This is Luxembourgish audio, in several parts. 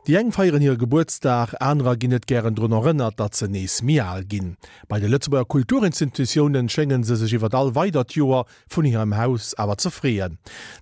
Déi eng feieren hire Gebuertsdag, anerer ginn net gären drun erënnert, datt se nees méi al ginn. Bei de Lëtzebuerger Kulturinstitutiounen schénge se sech iwwer all weidert Joer vun hirem Haus awer ze freeën.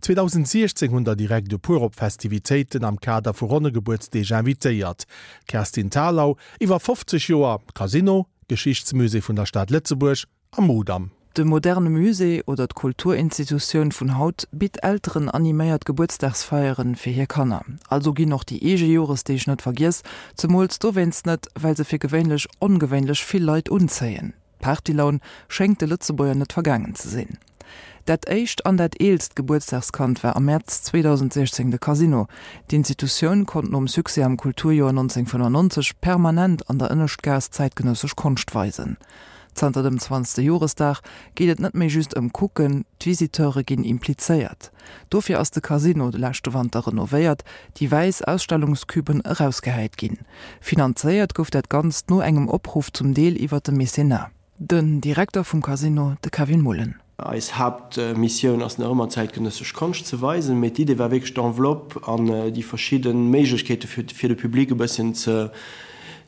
2016 hunn der direkt e puer op Festivitéiten am Kader vu ronne Gebuertsdeeg invitéiert. D'Kerstin Thalau iwwer 50 Joer Casino, Geschichtsmusée vun der Stad Lëtzebuerg, a Mudam. De moderne Musée oder d'Kulturinstitutioun vun haut bitt Elteren animéiert Gebuertsdagsfeieren fir hir Kanner. Also ginn och déi eege Joresdeeg net vergiess, zemools dowéinst net, well se fir gewéinlech ongewéinlech vill Leit unzéien. D'Partylaun schéngt de Lëtzebuerger net vergaangen ze sinn. Dat éischt an dat eelst Gebuertsdagskand war am Mäerz 2016 de Casino. D'Institutioun konnt nom Succès am Kulturjoer 1995 permanent an der Ënneschtgaass zäitgenëssesch Konscht weisen. Zanter dem zwanzegste Joresdag geet et net méi just ëm Kucken, d'Visiteure ginn implizéiert. Dofir ass de Casino de leschte Wanter renovéiert, déi wäiss Ausstellungscuben erausgehäit ginn. Finanzéiert gouf dat Ganzt no engem Opruff zum Deel iwwer de Mécénat. Den Direkter vum Casino, de Kevin Mullen. Eis Haaptmissioun ass nach ëmmer zäitgenëssesch Konscht ze weisen, mee d'Idee war wierklech d'Enveloppe an déi verschidde Méiglechkeete fir de Public e bësschen ze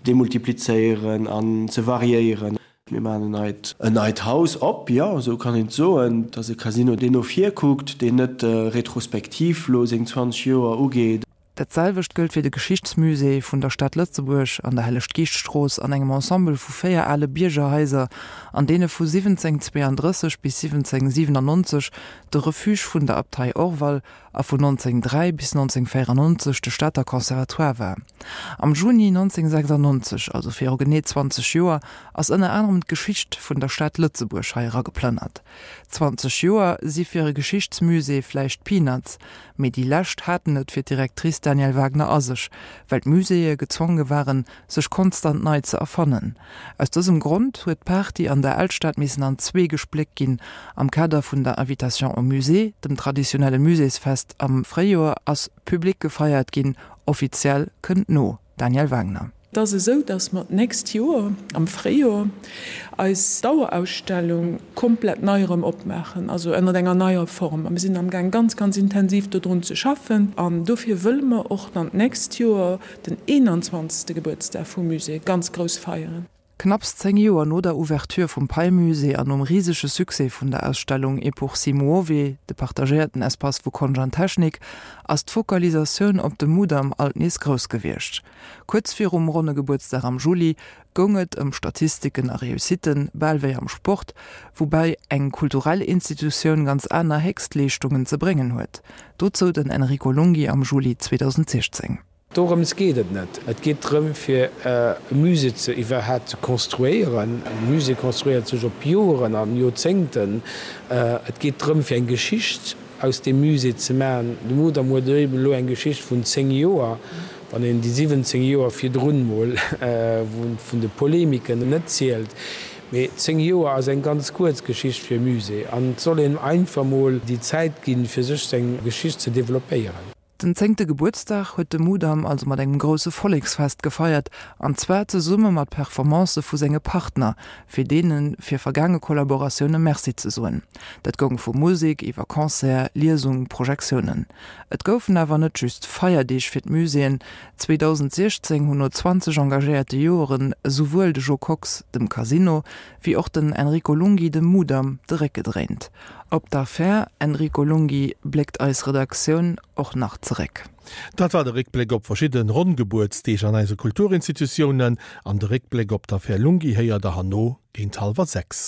demultiplizéieren an ze variéieren. Mir maachen en neit en neit Haus op, jo, esou kann een et soen. Et ass e Casino, deen no vir kuckt, deen net retrospektiv elo seng 20 Joer ugeet. Dat selwecht gëllt fir de Geschichtsmusée vun der Stad Lëtzebuerg an der Helleg-Geescht-Strooss an engem Ensemble vu 4 ale Biergerhaiser, an deene vu 1732 bis 1797 de Refuge vun der Abtei Orval a vun 1903 bis 1994 de Stater Conservatoire war. Am Juni 1996, also viru genee 20 Joer, ass ënner anerem d'Geschicht vun der Stad Lëtzebuerg hei erageplënnert. 20 Joer si fir e Geschichtsmusée vläicht Peanuts, Mee déi lescht haten et fir d'Directrice Danièle Wagner a sech, well d'Muséeë gezwonge waren, sech konstant nei ze erfannen. Aus dësem Grond huet d'Party an der Alstad missen an zwee gespléckt ginn. Am Kader vun der Invitation au Musée, dem traditionelle Muséesfest am Fréijoer, ass public gefeiert ginn. Offiziell kënnt no. Danièle Wagner. Et ass esou, dass mer d'nächst Joer am Fréijoer eis Dauerausstellung komplett nei erëm opmaachen, also ënnert enger neier Form. A mir sinn amgaang ganz, ganz intensiv dodrun ze schaffen. An dofir wëlle mer och dann d'nächst Joer den 21. Gebuertsdag vum Musée ganz grouss feieren. Knapps 10 Joer no der Ouverture vum Pei-Musée an nom risege Succès vun der Ausstellung E pur si muove, de partagéierten Espace vu Konscht an Technik, ass d'Fokalisatioun op de Mudam alt nees grouss gewiescht. Kuerz virum ronne Gebuertsdag am Juli goung et ëm Statistiken a Réussitten, bal wéi am Sport, woubäi eng kulturell Institutioun ganz aner Héchstleeschtungen ze bréngen huet. Dozou den Enrico Lunghi am Juli 2016. Dorëms geet et net. Et geet drëm, fir e Musée ze iwwerhaapt ze konstruéieren. E Musée konstruéiert sech op Joren an Joerzéngten. Et geet drëm, fir eng Geschicht aus deem Musée ze maachen. De Mudam huet eben elo eng Geschicht vun 10 Joer, wann een déi 17 Joer virdrun mol vun de Polemiken net zielt. Mee 10 Joer ass eng ganz kuerz Geschicht fir e Musée an et soll een einfach mol déi Zäit ginn, fir sech seng Geschicht ze developpéieren. Den zéngte Gebuertsdag huet de Mudam also mat engem grousse Volleksfest gefeiert, an zwar zesumme mat Performancë vu senge Partner, fir deene fir vergaange Kollaboratioune Merci ze soen. Dat goung vu Musek iwwer Concert, Liesung, Projektiounen. Et goufen awer net just Feierdeeg fir d'Muséeën. 2016 hunn no 20 engagéierte Joeren esouwuel de Jo Kox dem Casino, wéi och den Enrico Lunghi dem Mudam de Réck gedréint. Op d'Affär Enrico Lunghi bléckt eis Redaktioun och nach zeréck. Dat war de Réckbléck op verschidde ronn Gebuertsdeeg an eise Kulturinstitutiounen. An de Réckbléck op d'Affär Lunghi héiert der herno géint hallwer 6.